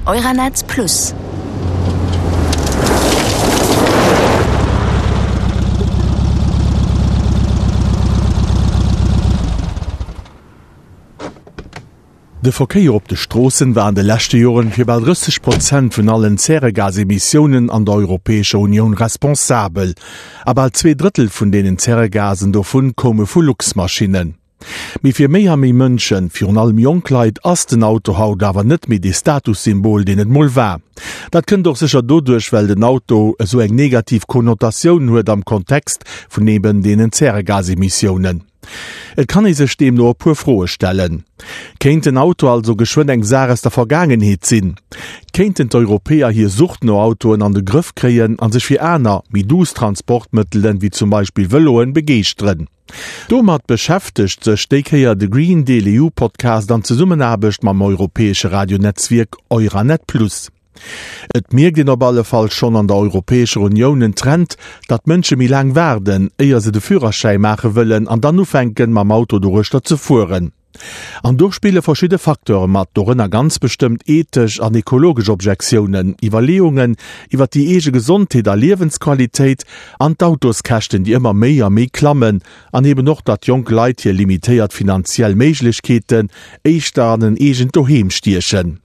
Euranet Plus. De Verkéier op de Stroossen war an de leschte Joren fir bal 30 Prozent vun allen Zäregasemissiounen an der Europäescher Unioun responsabel. A bal 2 Drëttel vun deenen Zäregasen dovun koume vu Luxmaschinnen. Mee fir méi a méi Mënschen, virun allem jonk Leit, ass den Auto haut awer net méi dee Statussymbol, deen et mol war. Dat kënnt och sécher doduerch, well den Auto esou eng negativ Konnotatioun huet am Kontext vun eben deenen Zäregasemissiounen. Et kann ee sech deemno e puer Froe stellen. Kéint den Auto also geschwënn eng Saach aus der Vergaangenheet sinn? Kéinten d'Europäer hir Sucht no Autoen an de Grëff kréien a sech fir aner, méi duuss Transportmëttelen, wéi zum Beispill Vëloen, begeeschteren? Domat beschäftegt sech déi Kéier de Green Deal EU Podcast an Zesummenaarbecht mam europäesche Radionetzwierk Euranet Plus. Et mierkt een op alle Fall schonn an der Europäescher Unioun en Trend, datt d'Mënsche méi laang waarden, éier se de Führerschäi maache wëllen an dann ufänken, mam Auto doruechter ze fueren. An do spille verschidde Facteure mat, dorënner ganz bestëmmt ethesch an ekologesch Objektiounen, Iwwerleeungen iwwer déi eege Gesondheet a Liewensqualitéit an d'Autoskäschten, déi ëmmer méi a méi klammen an eben och, datt jonk Leit hir limitéiert finanziell Méiglechkeeten éischter an en eegent Doheem stiechen.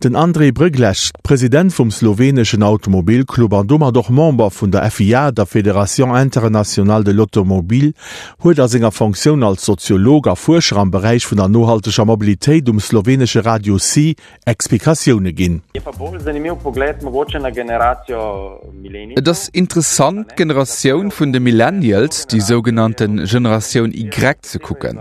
Den Andrej Brglez, President vum sloweneschen Automobilclub an domat och Member vun der FIA, der Fédération Internationale de l'Automobile, huet a senger Fonctioun als Soziolog a Fuerscher am Beräich vun der nohalteger Mobilitéit um slowenesche Radio C Explikatioune ginn. Et ass interessant d'Generatioun vun de Millennials, déi sougenannte Generatioun Y ze kucken.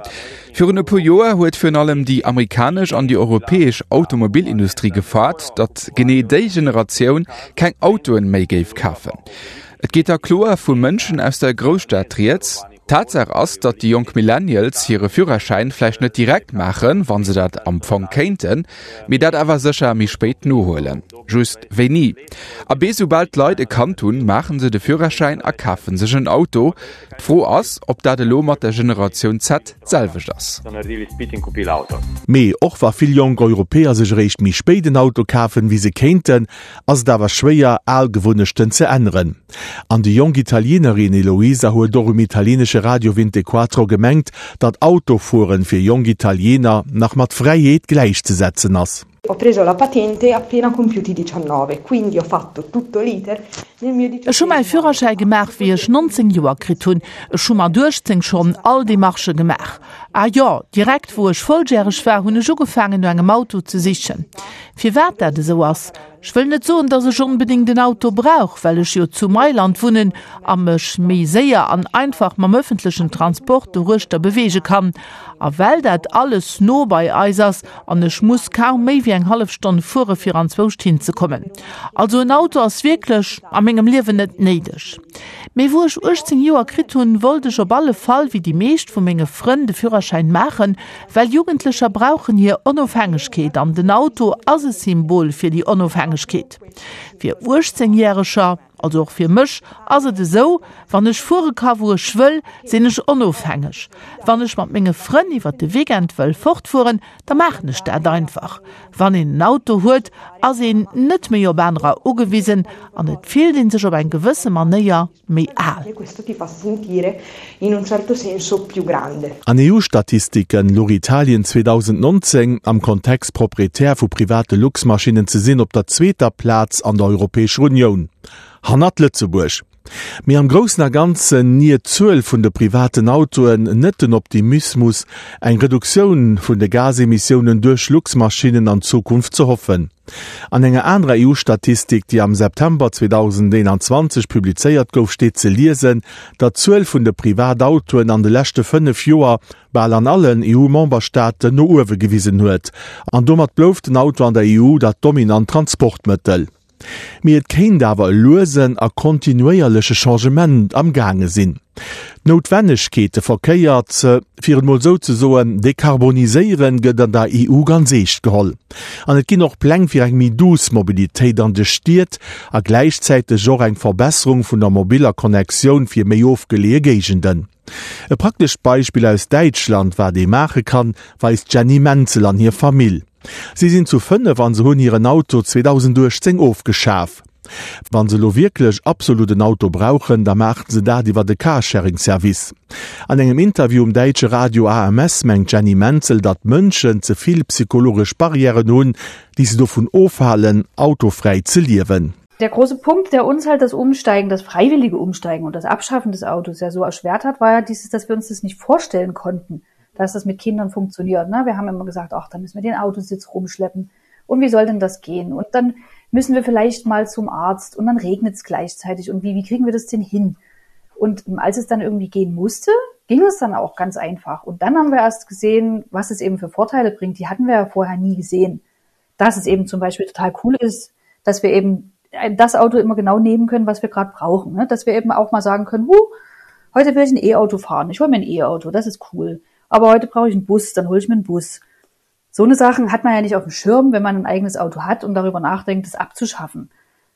Virun e puer Joer huet virun allem déi amerikanesch an déi europäesch Automobilindustrie gefaart, datt genee déi Generatioun keng Autoen méi géif kafen. Et geet da kloer vu Mënschen aus der Grousstad rieds. Tatsaach ass, datt déi jonk Millennials hire Führerschäin vläicht net direkt maachen, wa se dat am Fong kéinten, mee dat awer sécher méi spéit nohuelen. Just wéini? Abee, soubal d'Leit e Kand hunn, maache se de Führerschäin a kafe sech en Auto. D'Fro ass, ob dat elo mat der Generatioun Z d'selwecht ass. Mee och wa vill jonk Europäer sech eréischt méi spéit en Auto kafen, wéi se kéinten, ass et awer schwéier, al Gewunnechten ze änneren. An déi jonk Italienerin Eloisa huet och um italienesche Radio Vintequattro gemengt, datt Autofueren fir jonk Italiener nach mat Fräiheet gläichzesetzen ass. Ho preso la patente appena compiuti 19, quindi ho fatto tutto l'iter nel mio Ech hu mäi Führerschäi gemaach, wéi ech 19 Joer kritt hunn. Ech hu mat 18 schonn all Demarchë gemaach. A jo, direkt wou ech volljäreg war, hunn ech ugefaangen no engem Auto ze sichen. Firwat dat esou ass? Ech wëll net soen, dass ech onbedéngt en Auto brauch, well ech jo zu Mailand wunnen a mech méi séier an einfach mam ëffentlechen Transport doruechter beweege kann. A well dat alles no bei eis ass an ech muss kaum méi wéi eng hallef Stonn fuere fir anzwouscht hinzekommen. Also en Auto ass wierklech a mengem Liewen net néideg. Mee wou ech 18 Joer kritt hunn, wollt ech op alle Fall wéi déi meescht vu menge Frënn de Führerschäin maachen, well Jugendlecher brauchen hir Onofhängegkeet an den Auto ass e Symbol fir déi Onofhängegkeet. Fir 18 Järeger, also och fir mech, ass et esou, wann ech fuere ka wou ech wëll, sinn ech onofhängeg. Wann ech mat menge Frënn iwwer de Weekend wëll fortfueren, da maachen ech dat einfach. Wann een en Auto huet, ass een net méi op anerer ugewisen an et fillt ee sech op eng gewësse Manéier méi al. An EU-Statistiken louch Italien 2019, am Kontext Proprietär vu private Luxmaschinnen ze sinn, op der zweeter Plaz an der Europäescher Unioun, hannert Lëtzebuerg. Mee am Groussen a Ganzen niert d'Zuel vun de privaten Autoen net den Optimismus, eng Reduktioun vun de Gasemissiounen duerch Luxmaschinnen an Zukunft ze hoffen. An enger anerer EU-Statistik, déi am September 2021 publizéiert gouf, steet ze liesen, datt d'Zuel vun de Privatautoen an de leschte 5 Joer bal an allen EU-Memberstaaten no uewe gewisen huet. An domat blouf den Auto an der EU dat dominant Transportmëttel. Mee et kéint awer e luesen a kontinuéierleche Changement am gaange sinn. D'Noutwennegkeet, de Verkéier ze, fir et mol esou ze soen, dekarboniséieren, gëtt an der EU ganz eescht geholl. An et ginn och Pläng fir eng méi douce Mobilitéit an de Stied a gläichzäiteg och eng Verbesserung vun der mobiller Connectioun fir méi ofgeleeë Géigenden. E praktescht Beispill aus Däitschland, wat ee maache kann, weist d'Jenny Menzel an hir Famill. Si sinn zu 5 an se hunn hiren Auto 2018 ofgeschaf. Wann se elo wierklech absolut en Auto brauchen, da maachen se dat iwwer e Carsharing-Service. An engem Interview um däitsche Radio AMS mengt d'Jenny Menzel, datt d'Mënschen ze vill psychologesch Barrièren hunn, déi se dovun ofhalen, autofräi ze liewen. Der große Punkt, der uns halt das Umsteigen, das freiwillige Umsteigen und das Abschaffen des Autos ja so erschwert hat, war ja dieses, dass wir uns das nicht vorstellen konnten, dass das mit Kindern funktioniert. Ne? Wir haben immer gesagt, ach, da müssen wir den Autositz rumschleppen. Und wie soll denn das gehen? Und dann müssen wir vielleicht mal zum Arzt und dann regnet es gleichzeitig. Und wie, wie kriegen wir das denn hin? Und als es dann irgendwie gehen musste, ging es dann auch ganz einfach. Und dann haben wir erst gesehen, was es eben für Vorteile bringt. Die hatten wir ja vorher nie gesehen. Dass es eben zum Beispiel total cool ist, dass wir eben das Auto immer genau nehmen können, was wir gerade brauchen. Ne? Dass wir eben auch mal sagen können, hu, heute will ich ein E-Auto fahren. Ich hole mir ein E-Auto, das ist cool. Aber heute brauche ich einen Bus, dann hole ich mir einen Bus. So eine Sachen hat man ja nicht auf dem Schirm, wenn man ein eigenes Auto hat und darüber nachdenkt, es abzuschaffen.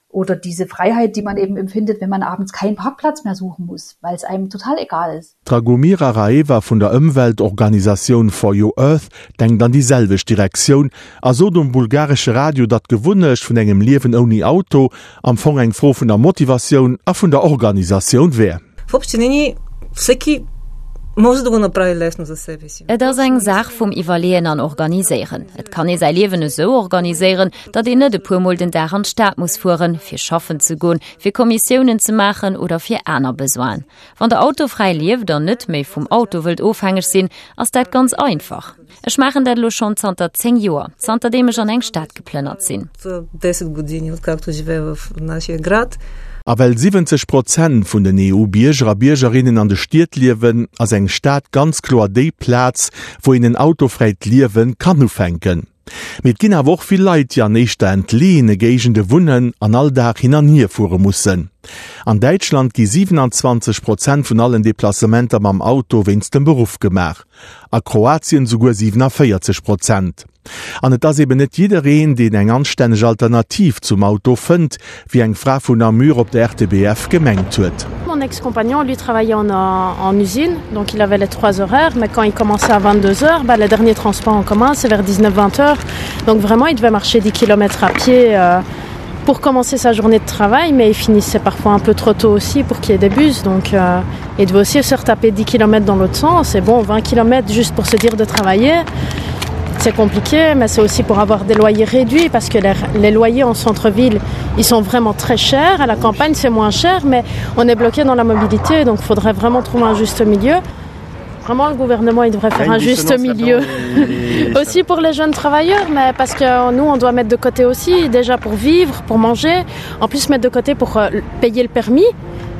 Oder diese Freiheit, die man eben empfindet, wenn man abends keinen Parkplatz mehr suchen muss, weil es einem total egal ist. D'Dragomira Raeva vun der Ëmweltorganisatioun For Your Earth denkt an déi selwecht Direktioun a sot um bulgaresche Radio, datt d'Gewunnecht vun engem Liewen ouni Auto am Fong eng Fro vun der Motivatioun a vun der Organisatioun wär. В общи линии всеки може да го направи лесно за себе си. Et ass eng Saach vum Iwwerleeën an Organiséieren. Et kann ee säi Liewen esou organiséieren, datt een net e puer Mol den Dag an d'Stad muss fueren, fir schaffen ze goen, fir Kommissiounen ze maachen oder fir aner Besoinen. Wann der autofräi lieft an net méi vum Auto wëllt ofhängeg sinn, ass dat ganz einfach. Ech maachen dat elo schonn zanter 10 Joer, zanterdeem ech an eng Stad geplënnert sinn. A well 70 Prozent vun den EU-Bierger a Biergerinnen an de Stied liewen, ass eng Stad ganz kloer déi Plaz, wou een en autofräit Liewe kann ufänken. Mee et ginn awer och vill Leit, déi an éischter entleeëne Géigende wunnen an all Dag hin an hier fuere mussen. An Däitschland gi 27 Prozent vun allen Deplacementer mam Auto wéinst dem Beruff gemaach. A Kroatien souguer 47 Prozent. An et ass eben net jiddereen, deen eng anstänneg Alternativ zum Auto fënnt, wéi eng Fra vun Namur op der RTBF gemengt huet. Mon ex-compagnon lui travaillait en, en usine, donc il avait les trois horaires, mais quand il commençait à 22 heures, bah, le dernier transport en commun c'est vers 19-20 heures. Donc vraiment il devait marcher 10 km à pied euh, pour commencer sa journée de travail, mais il finissait parfois un peu trop tôt aussi pour qu'il y ait des bus. Donc euh, il devait aussi se retaper 10 km dans l'autre sens. Et bon, 20 km juste pour se dire de travailler, c'est compliqué, mais c'est aussi pour avoir des loyers réduits parce que les, les loyers en centre-ville, ils sont vraiment très chers. À la campagne, c'est moins cher, mais on est bloqué dans la mobilité, donc il faudrait vraiment trouver un juste milieu. Vraiment, le gouvernement il devrait faire un juste milieu aussi pour les jeunes travailleurs, mais parce que nous, on doit mettre de côté aussi, déjà pour vivre, pour manger, en plus mettre de côté pour euh, payer le permis,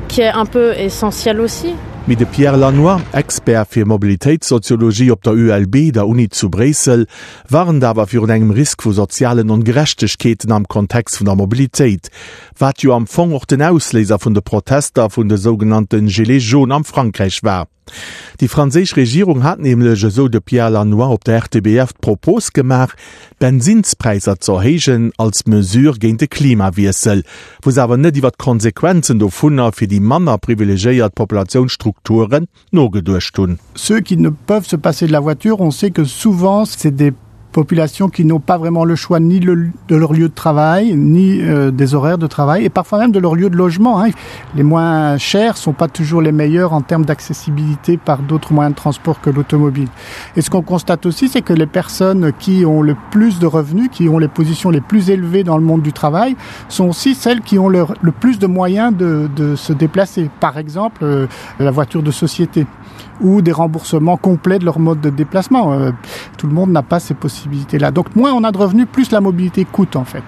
qui est un peu essentiel aussi. Mee de Pierre Lannoy, Expert fir Mobilitéitssoziologie op der ULB, der Uni zu Bréissel, warnt awer virun engem Risk vu sozialen Ongerechtegkeeten am Kontext vun der Mobilitéit, wat jo am Fong och den Ausléiser vun de Protester vun de sougenannte Gilets jaunes am Frankräich war. Déi franséisch Regierung hat nämlech, esou de Pierre Lannoy op der RTBF, d'Propos gemaach, d'Bensinnspräisser ze erhéijen als Mesure géint de Klimawiessel, wou se awer net iwwer d'Konsequenzen dovunner fir déi manner privilegéiert Populatiounsstrukturen nogeduecht hunn. Ceux qui ne peuvent se passer de la voiture, on sait que souvent c'est des populations qui n'ont pas vraiment le choix ni le, de leur lieu de travail, ni euh, des horaires de travail, et parfois même de leur lieu de logement. Hein. Les moins chers sont pas toujours les meilleurs en termes d'accessibilité par d'autres moyens de transport que l'automobile. Et ce qu'on constate aussi, c'est que les personnes qui ont le plus de revenus, qui ont les positions les plus élevées dans le monde du travail, sont aussi celles qui ont leur, le plus de moyens de, de se déplacer. Par exemple, euh, la voiture de société ou des remboursements complets de leur mode de déplacement. Euh, tout le monde n'a pas ces possibilités-là. Donc moins on a de revenus, plus la mobilité coûte en fait.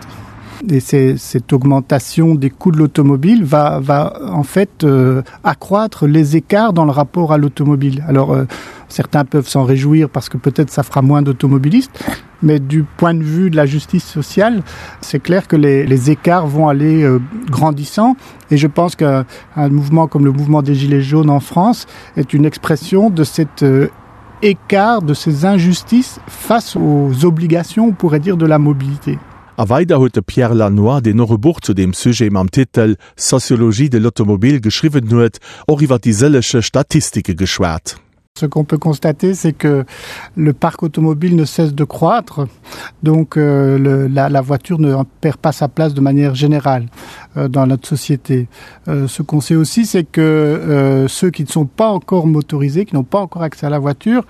Et cette augmentation des coûts de l'automobile va, va en fait euh, accroître les écarts dans le rapport à l'automobile. Alors euh, certains peuvent s'en réjouir parce que peut-être ça fera moins d'automobilistes, mais du point de vue de la justice sociale, c'est clair que les, les écarts vont aller euh, grandissant et je pense qu'un mouvement comme le mouvement des gilets jaunes en France est une expression de cet euh, écart de ces injustices face aux obligations, on pourrait dire de la mobilité. A weider huet de Pierre Lannoy, deen och e Buch zu deem Sujet mam Titel Sociologie de l'automobile geschriwwen huet, och iwwer déi sëllege Statistike geschwat. Ce qu'on peut constater, c'est que le parc automobile ne cesse de croître, donc euh, le, la, la voiture ne perd pas sa place de manière générale euh, dans notre société. Euh, ce qu'on sait aussi, c'est que euh, ceux qui ne sont pas encore motorisés, qui n'ont pas encore accès à la voiture,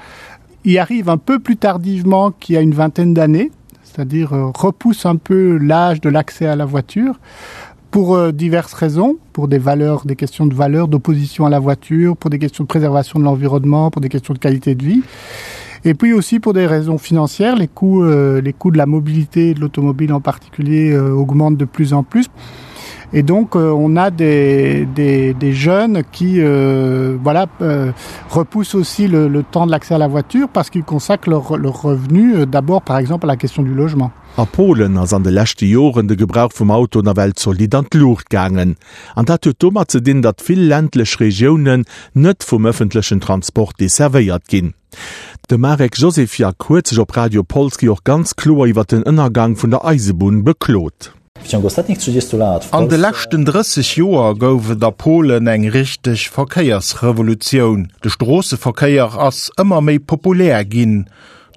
y arrivent un peu plus tardivement qu'il y a une vingtaine d'années, c'est-à-dire euh, repoussent un peu l'âge de l'accès à la voiture pour euh, diverses raisons, pour des valeurs, des questions de valeur, d'opposition à la voiture, pour des questions de préservation de l'environnement, pour des questions de qualité de vie. Et puis aussi pour des raisons financières, les coûts, euh, les coûts de la mobilité de l'automobile en particulier euh, augmentent de plus en plus. Et donc euh, on a des, des, des jeunes qui euh, voilà, euh, repoussent aussi le, le temps de l'accès à la voiture parce qu'ils consacrent leur, leur revenu euh, d'abord par exemple à la question du logement. A Polen ass an de leschte Joren de Gebrauch vum Auto nawell zolidd an d'Luucht gaangen. An dat huet domat ze dinn, datt vill ländlech Regiounen net vum ëffentlechen Transport desservéiert ginn. De Marek Josefiak huet sech op Radio Polski och ganz kloer iwwer den Ënnergang vun der Eisebunn beklot. An de leschten 30 Joer gouf et a Polen eng richteg Verkéiersrevolutioun. De Stroosseverkéier ass ëmmer méi populär ginn.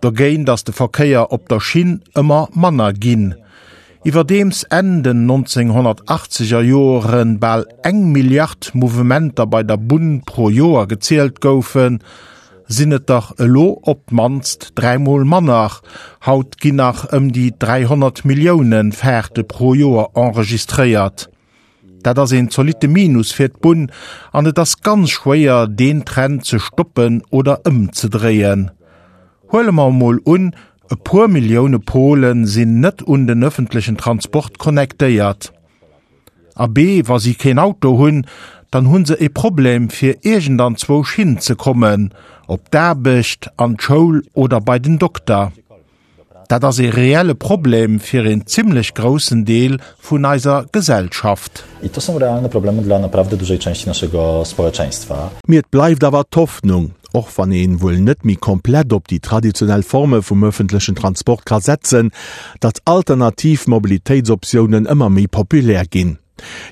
Dogéint ass de Verkéier op der Schinn ëmmer manner ginn. Iwwerdeems Enn den 1980 er Joere bal eng Milliard Mouvementer bei der Bunn pro Joer gezielt goufen, sinn et der elo op d'mannst dräimol manner. Haut ginn nach ëm déi 300 Millioune Faarte pro Joer enregistréiert. Dat ass een zolitte Minus fir d'Bunn an et ass ganz schwéier, deen Trend ze stoppen oder ëmzedréien. Huele mer emol un, e puer Millioune Pole sinn net un den ëffentlechen Transport connectéiert. Abee, wa si keen Auto hunn, dann hu se e Problem fir iergendanzwousch hinzekommen, op d'Aarbecht, an d'Schoul oder bei den Dokter. Dat ass ee reelle Problem fir een zimlech groussen Deel vun eiser Gesellschaft. I to są realne problemy dla naprawdę dużej części naszego społeczeństwa. Mee et bleift awer d'Hoffnung, och wann een wuel net méi komplett op déi traditionell Forme vum ëffentlechen Transport ka setzen, datt alternativ Mobilitéitsoptiounen ëmmer méi populär ginn.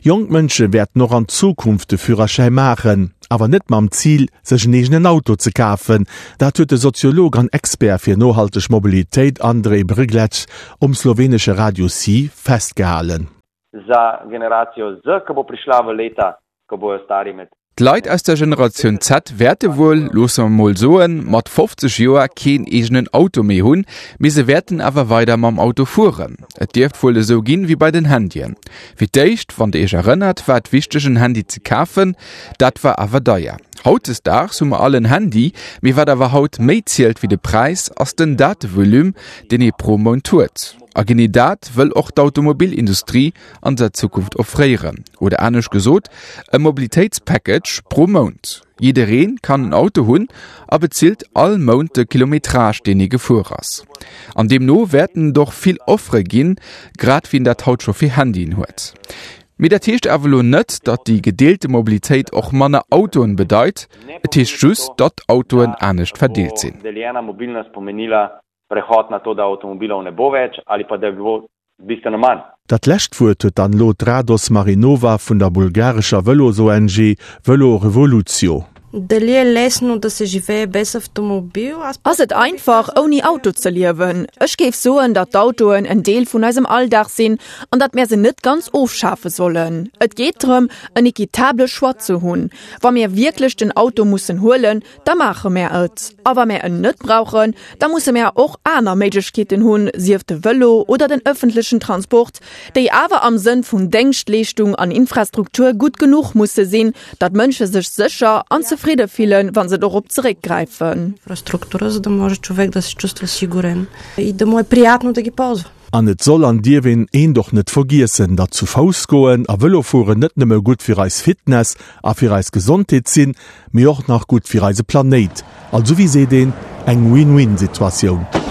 Jonk Mënsche wäerten och an Zukunft de Führerschäi maachen, awer net mam Zil, sech en eegenen Auto ze kafen. Dat huet de Soziolog an Expert fir nohalteg Mobilitéit Andrej Brglez um slowenesche Radio Si festgehalen. Za generacijo Z, ko bo prišla v leta, ko bojo stari med. D'Leit aus der Generatioun Z wäerte wuel, loosse mer mol soen, mat 50 Joer keen eegenen Auto méi hunn, mee se wäerten awer weider mam Auto fueren. Et dierft wuel esou ginn, wéi bei den Handyen. Fir d'éischt, wann der iech erënnert, war et wichteg en Handy ze kafen, dat war awer deier. Hautdesdaags hu mer all en Handy, mee wat awer haut méi zielt wéi de Präis, ass den Datevolume, deen ee pro Mount huet. A genee dat wëll och d'Automobilindustrie an der Zukunft offréieren. Oder anescht gesot, e Mobilitéitspackage pro Mount. Jidderee kann en Auto hunn a bezilt all Mount de Kilometrage, deen ee gefuer ass. An deemno wäerten et och vill Offere ginn, grad wéi een dat haut scho fir Handyen huet. Mee dat heescht awer elo net, datt déi gedeelte Mobilitéit och manner Autoen bedeit. Et heescht just, datt d'Autoen anescht verdeelt sinn. Prehod na to, da avtomobilov ne bo več ali pa da jih bo bistveno manj. Dat lescht Wuert huet dann elo d'Rados Marinova vun der bulgarescher Vëlos-ONG Vëlo Revolutio. Дали е лесно да се живее без автомобил? Аз Ass et einfach, ouni Auto ze liewen? Ech géif soen, datt d'Autoen en Deel vun eisem Alldag sinn an datt mär se net ganz ofschafe sollen. Et geet drëm, en equitable Choix ze hunn. Wa mir wierklech den Auto mussen huelen, da maache mär et. A wa mär en net brauchen, da musse mär och aner Méiglechkeeten hunn, sief de Vëlo oder den ëffentlechen Transport, déi awer am Sënn vun Déngschtleeschtung an Infrastruktur gutt genuch musse sinn, datt Mënsche sech sécher an zefridde fillen, wa se dorop zeréckgräifen. Инфраструктура, за да може човек да се чувства сигурен и да му е приятно да ги ползва. An et soll an dierf een eent och net vergiessen, datt zu Fouss goen a Vëlo fueren net nëmme gutt fir eis Fitness a fir eis Gesondheet sinn, mee och nach gutt fir eise Planéit. Also wéi seet een, eng Win-Win-Situatioun.